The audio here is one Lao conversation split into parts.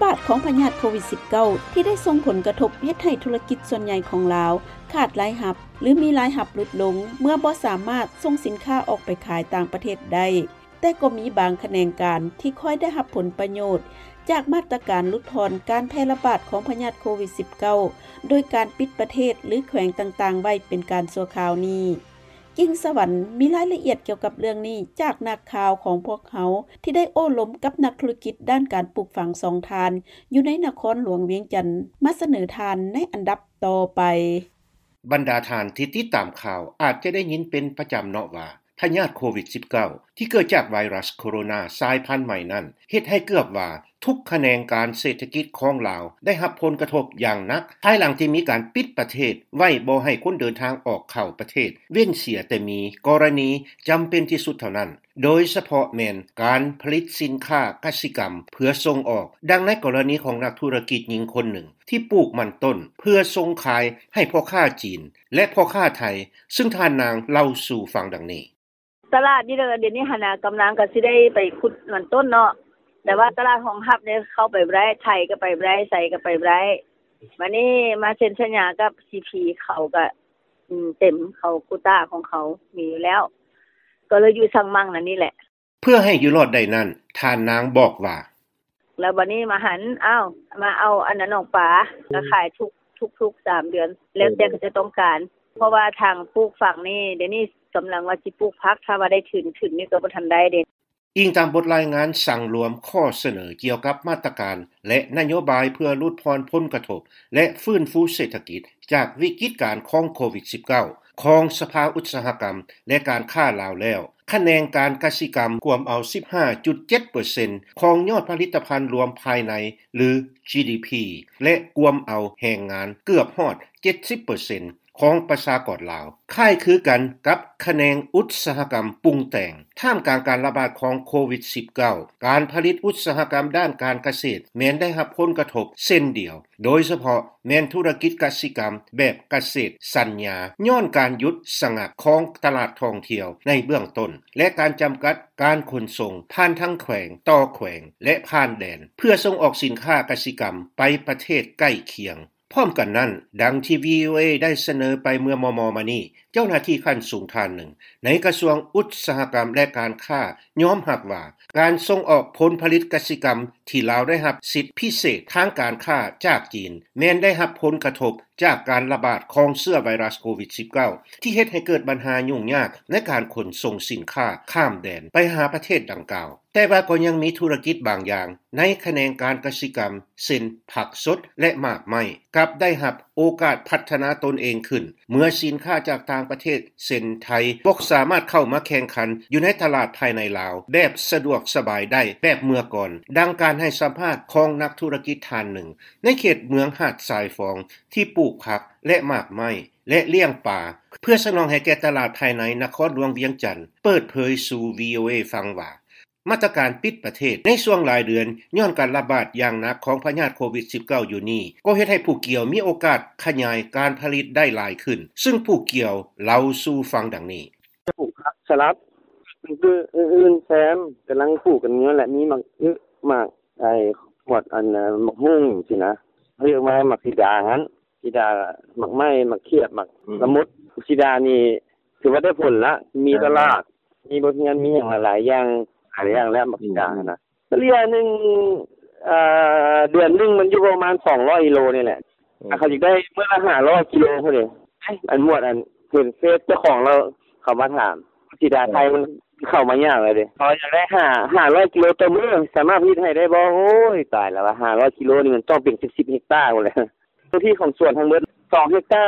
ບາດຂອງພະຍາດໂຄວິດ-19 ທີ່ໄດ້ສົ່ງຜົນກະທົບເຮັດໃຫ້ທຸລະກິດສ່ວນໃຫຍ່ຂອງລາວຂາດລາຍຮັບ ຫຼື ມີລາຍຮັບຫຼຸດລົງ ເມື່ອບໍ່ສາມາດສົ່ງສິນຄ້າອອກໄປຂາຍຕ່າງປະເທດໄດ້. ແຕ່ກໍມີບາງຂະແໜງການທີ່ຄ່ອຍໄດ້ຮັບຜົນປະໂຫຍດຈາກມາດຕະການຫຼຸດຜ່ອນການແຜ່ລະບາດຂອງພະຍາດໂຄວິດ-19 ໂດຍການປິດປະເທດ ຫຼື ແຂວງຕ່າງໆໄວ້ເປັນການຊົ່ວຄາວນີ້. ກິ່ງສະຫວັນມີລາຍລະອຽດກ່ຽວກັບເລື່ອງນີ້ຈາກນັກຂ່າວຂອງພວກເຮົາ ທີ່ໄດ້ໂອ້ລົມກັບນັກທຸລະກິດດ້ານການປູກຝັງສອງທ່ານ ຢູ່ໃນນະຄອນຫຼວງວຽງຈັນ ມາສະເໜີທ່ານໃນອັນດັບຕໍ່ໄປ. ບັນດາທ່ານທີ່ຕິດຕາມຂ່າວອາດຈະໄດ້ຍິນເປັນປະຈຳເນາະວ່າ ພະຍາດໂຄວິດ-19 ທີ່ເກີດຈາກໄວຣັສໂຄໂຣນາສາຍພັນໃໝ່ນັ້ນ ເຮັດໃຫ້ເກືອບວ່າທຸກຂະແໜງການເສດຖະກິດຂອງລາວໄດ້ຮັບຜົນກະທົບຢ່າງໜັກ ພາຍຫຼັງທີ່ມີການປິດປະເທດໄວ້ບໍ່ໃຫ້ຄົນເດີນທາງອອກເຂົ້າປະເທດ ເວັ້ນເສຍແຕ່ມີກໍລະນີຈຳເປັນທີ່ສຸດເທົ່ານັ້ນ ໂດຍສະເພາະແມ່ນການຜະລິດສິນຄ້າກະສິກຳເພື່ອສົ່ງອອກ. ດັ່ງໃນກໍລະນີຂອງນັກທຸລະກິດຍິງຄົນໜຶ່ງ ທີ່ປູກມັນຕົ້ນເພື່ອສົ່ງຂາຍໃຫ້ພໍ່ຄ້າຈີນ ແລະ ພໍ່ຄ້າໄທ ຊຶ່ງທ່ານນາງເລົ່າສູ່ຟັງດັ່ງນີ້. ຕະຫຼາດນີ້ລະ ດຽວນີ້ຫັ້ນນະ ກຳລັງກໍຊິໄດ້ໄປຂຸດມັນຕົ້ນເນາະ ແຕ່ວ່າຕະຫຼາດຮອງຮັບນີ້ເຂົ້າໄປບໍ່ໄດ້ ໄທກໍໄປບໍ່ໄດ້ ໃສກໍໄປບໍ່ໄດ້. ບາດນີ້ມາເຊັນສັນຍາກັບ ຊີພີ ເຂົາກໍ ອືມ ເຕັມ ເຂົາໂຄຕ້າຂອງເຂົາມີຢູ່ແລ້ວ ກໍເລີຍຢູ່ສັງມັງນັ້ນນີ້ແຫຼະ. ເພື່ອໃຫ້ຢູ່ລອດໄດ້ນັ້ນ ທ່ານນາງບອກວ່າ ແລ້ວບາດນີ້ມາຫັນ ອ້າວ ມາເອົາອັນນັ້ນອອກປາ ກໍຂາຍທຸກ ທຸກໆສາມເດືອນ ແລ້ວແຕ່ເຂົາເຈົ້າຕ້ອງການ ເພາະວ່າທາງປູກຝັງນີ້ ດຽວນີ້ກຳລັງວ່າຊິປູກຜັກ ຖ້າວ່າໄດ້ທຶນ ທຶນນີ້ກໍບໍ່ທັນໄດ້ເດ້. ອີງຕາມບົດລາຍງານສັງລວມຂໍ້ສະເໜີກ່ຽວກັບມາດຕະການ ແລະ ນະໂຍບາຍເພື່ອຫຼຸດຜ່ອນຜົນກະທົບ ແລະ ຟື້ນຟູເສດຖະກິດຈາກວິກິດການຂອງໂຄວິດ-19 ຂອງສະພາອຸດສາຫະກຳ ແລະ ການຄ້າລາວແລ້ວ, ຂະແໜງການກະສິກຳກວມເອົາ ສິບຫ້າຈຸດເຈັດເປີເຊັນ ຂອງຍອດຜະລິດຕະພັນລວມພາຍໃນ ຫຼື ຈີດີພີ ແລະ ກວມເອົາແຮງງານເກືອບຮອດ ເຈັດສິບເປີເຊັນ ຂອງປະຊາກອນລາວ, ຄ້າຍຄືກັນກັບຂະແໜງອຸດສາຫະກຳປຸງແຕ່ງ. ທ່າມກາງການລະບາດຂອງໂຄວິດ-19, ການຜະລິດອຸດສາຫະກຳດ້ານການກະເສດແມ່ນໄດ້ຮັບຜົນກະທົບເຊັ່ນດຽວ, ໂດຍສະເພາະແມ່ນທຸລະກິດກະສິກຳແບບກະເສດສັນຍາ, ຍ້ອນການຢຸດສະງັກຂອງຕະຫຼາດທ່ອງທ່ຽວໃນເບື້ອງຕົ້ນ ແລະ ການຈຳກັດການຂົນສົ່ງຜ່ານທາງແຂວງຕໍ່ແຂວງ ແລະ ຜ່ານແດນ ເພື່ອສົ່ງອອກສິນຄ້າກະສິກຳໄປປະເທດໃກ້ຄຽງ. ພ້ອມກັນນັ້ນ, ດັ່ງທີ່ ວີໂອເອ ໄດ້ສະເໜີໄປເມື່ອມໍ່ໆມານີ້, ເຈົ້າໜ້າທີ່ຂັ້ນສູງທ່ານໜຶ່ງໃນກະຊວງອຸດສາຫະກຳ ແລະ ການຄ້າ ຍອມຮັບວ່າ ການສົ່ງອອກຜົນຜະລິດກະສິກຳທີ່ລາວໄດ້ຮັບສິດພິເສດທາງການຄ້າຈາກຈີນ ແມ່ນໄດ້ຮັບຜົນກະທົບຈາກການລະບາດຂອງເຊື້ອໄວຣັສໂຄວິດ-19 ທີ່ເຮັດໃຫ້ເກີດບັນຫາຫຍຸ້ງຍາກໃນການຂົນສົ່ງສິນຄ້າຂ້າມແດນໄປຫາປະເທດດັ່ງກ່າວ. ແຕ່ວ່າກໍຍັງມີທຸລະກິດບາງຢ່າງໃນຂະແໜງການກະສິກຳ ເຊັ່ນ ຜັກສົດ ແລະ ໝາກໄມ້ ກັບໄດ້ຮັບໂອກາດພັດທະນາຕົນເອງຂຶ້ນ ເມື່ອສິນຄ້າຈາກຕ່າງປະເທດ ເຊັ່ນ ໄທ ບໍ່ສາມາດເຂົ້າມາແຂ່ງຂັນຢູ່ໃນຕະຫຼາດພາຍໃນລາວແບບສະດວກສະບາຍໄດ້ແບບເມື່ອກ່ອນ, ດັ່ງການໃຫ້ສຳພາດຂອງນັກທຸລະກິດທ່ານໜຶ່ງໃນເຂດເມືອງຫາດຊາຍຟອງ ທີ່ປູກຜັກ ແລະ ໝາກໄມ້ ແລະ ລ້ຽງປາ ເພື່ອສະໜອງໃຫ້ແກ່ຕະຫຼາດພາຍໃນນະຄອນຫຼວງວຽງຈັນ ເປີດເຜີຍສູ່ ວີໂອເອ ຟັງວ່າ ມາດຕະການປິດປະເທດໃນຊ່ວງຫຼາຍເດືອນ ຍ້ອນການລະບາດຢ່າງໜັກຂອງພະຍາດໂຄວິດ-19 ຢູ່ນີ້ ກໍເຮັດໃຫ້ຜູ້ກ່ຽວມີໂອກາດຂະຫຍາຍການຜະລິດໄດ້ຫຼາຍຂຶ້ນ, ຊຶ່ງຜູ້ກ່ຽວເລົ່າສູ່ຟັງດັ່ງນີ້. ປູກຜັກສະຫຼັດ ອື່ນໆແຊມ ກຳລັງປູກກັນຢູ່ຫັ້ນແຫຼະ ມີໝາກອຶ ໝາກ ໄອ້ ໝວດ ອັນ ໝາກຫຸ່ງຊີ້ນະ ເອີ້ນວ່າໝາກສີດາຫັ້ນ ສີດາ ໝາກໄມ້ ໝາກຂຽບ ໝາກ ອືມ ລະມຸດ. ສີດານີ້ຖືວ່າໄດ້ຜົນລະ ມີຕະຫຼາດ ມີບົດຮຽນ ມີຫຍັງຫຼາຍໆຢ່າງ ຫຼາຍຢ່າງແລ້ວ ໝາກສີດາ ອືມ ຫັ້ນນະ. ສະເລ່ຍໜຶ່ງ ເອີ ເດືອນໜຶ່ງມັນຢູ່ປະມານສອງຮ້ອຍກິໂລນີ້ແຫຼະ ອືມ ເຂົາຢາກໄດ້ມື້ລະຫ້າຮ້ອຍກິໂລພຸ້ນເດ. ອັນໝວດ ອັນ ເຫັນເຟສເຈົ້າຂອງລາວເຂົາມາຖາມ ສີດາໄທມັນເຂົ້າມາຍາກແລ້ວເດ ເຂົາຢາກໄດ້ຫ້າ ຫ້າຮ້ອຍກິໂລຕໍ່ມື້ ສາມາດຜະລິດໃຫ້ໄດ້ບໍ່? ໂອ້ຍ ຕາຍແລ້ວວ່າ ຫ້າຮ້ອຍກິໂລນີ້ມັນຕ້ອງເປັນສິບເຮັກຕາພຸ້ນແຫຼະ. ເນື້ອທີ່ຂອງສວນທັງໝົດສອງເຮັກຕາ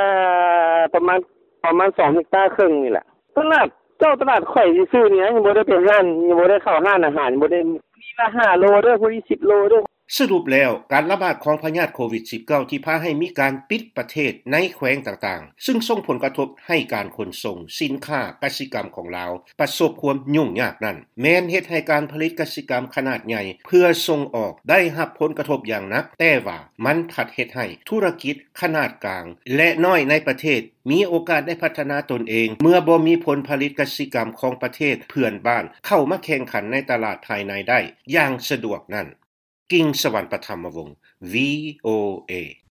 ປະມານ ປະມານສອງເຮັກຕາເຄິ່ງນີ້ແຫຼະ. ຕະຫຼາດ ເຈົ້າ ຕະຫຼາດຂ້ອຍຊື່ໆນີ້ ຍັງບໍ່ໄດ້ໄປຮ້ານ ຍັງບໍ່ໄດ້ເຂົ້າຮ້ານອາຫານ ຍັງບໍ່ໄດ້ ຜູ້ນີ້ລະຫ້າໂລເດີ ຜູ້ນີ້ສິບໂລເດີ. ສະຫຼຸບແລ້ວ, ການລະບາດຂອງພະຍາດໂຄວິດ-19 ທີ່ພາໃຫ້ມີການປິດປະເທດໃນແຂວງຕ່າງໆ, ຊຶ່ງສົ່ງຜົນກະທົບໃຫ້ການຂົນສົ່ງສິນຄ້າກະສິກຳຂອງລາວປະສົບຄວາມຫຍຸ້ງຍາກນັ້ນ, ແມ່ນເຮັດໃຫ້ການຜະລິດກະສິກຳຂະໜາດໃຫຍ່ເພື່ອສົ່ງອອກໄດ້ຮັບຜົນກະທົບຢ່າງໜັກ, ແຕ່ວ່າມັນພັດເຮັດໃຫ້ທຸລະກິດຂະໜາດກາງ ແລະ ນ້ອຍໃນປະເທດ ມີໂອກາດໄດ້ພັດທະນາຕົນເອງ ເມື່ອບໍ່ມີຜົນຜະລິດກະສິກຳຂອງປະເທດເພື່ອນບ້ານເຂົ້າມາແຂ່ງຂັນໃນຕະຫຼາດພາຍໃນໄດ້ຢ່າງສະດວກນັ້ນ. ກິ່ງສະຫວັນປະທຳມະວົງ ວີໂອເອ.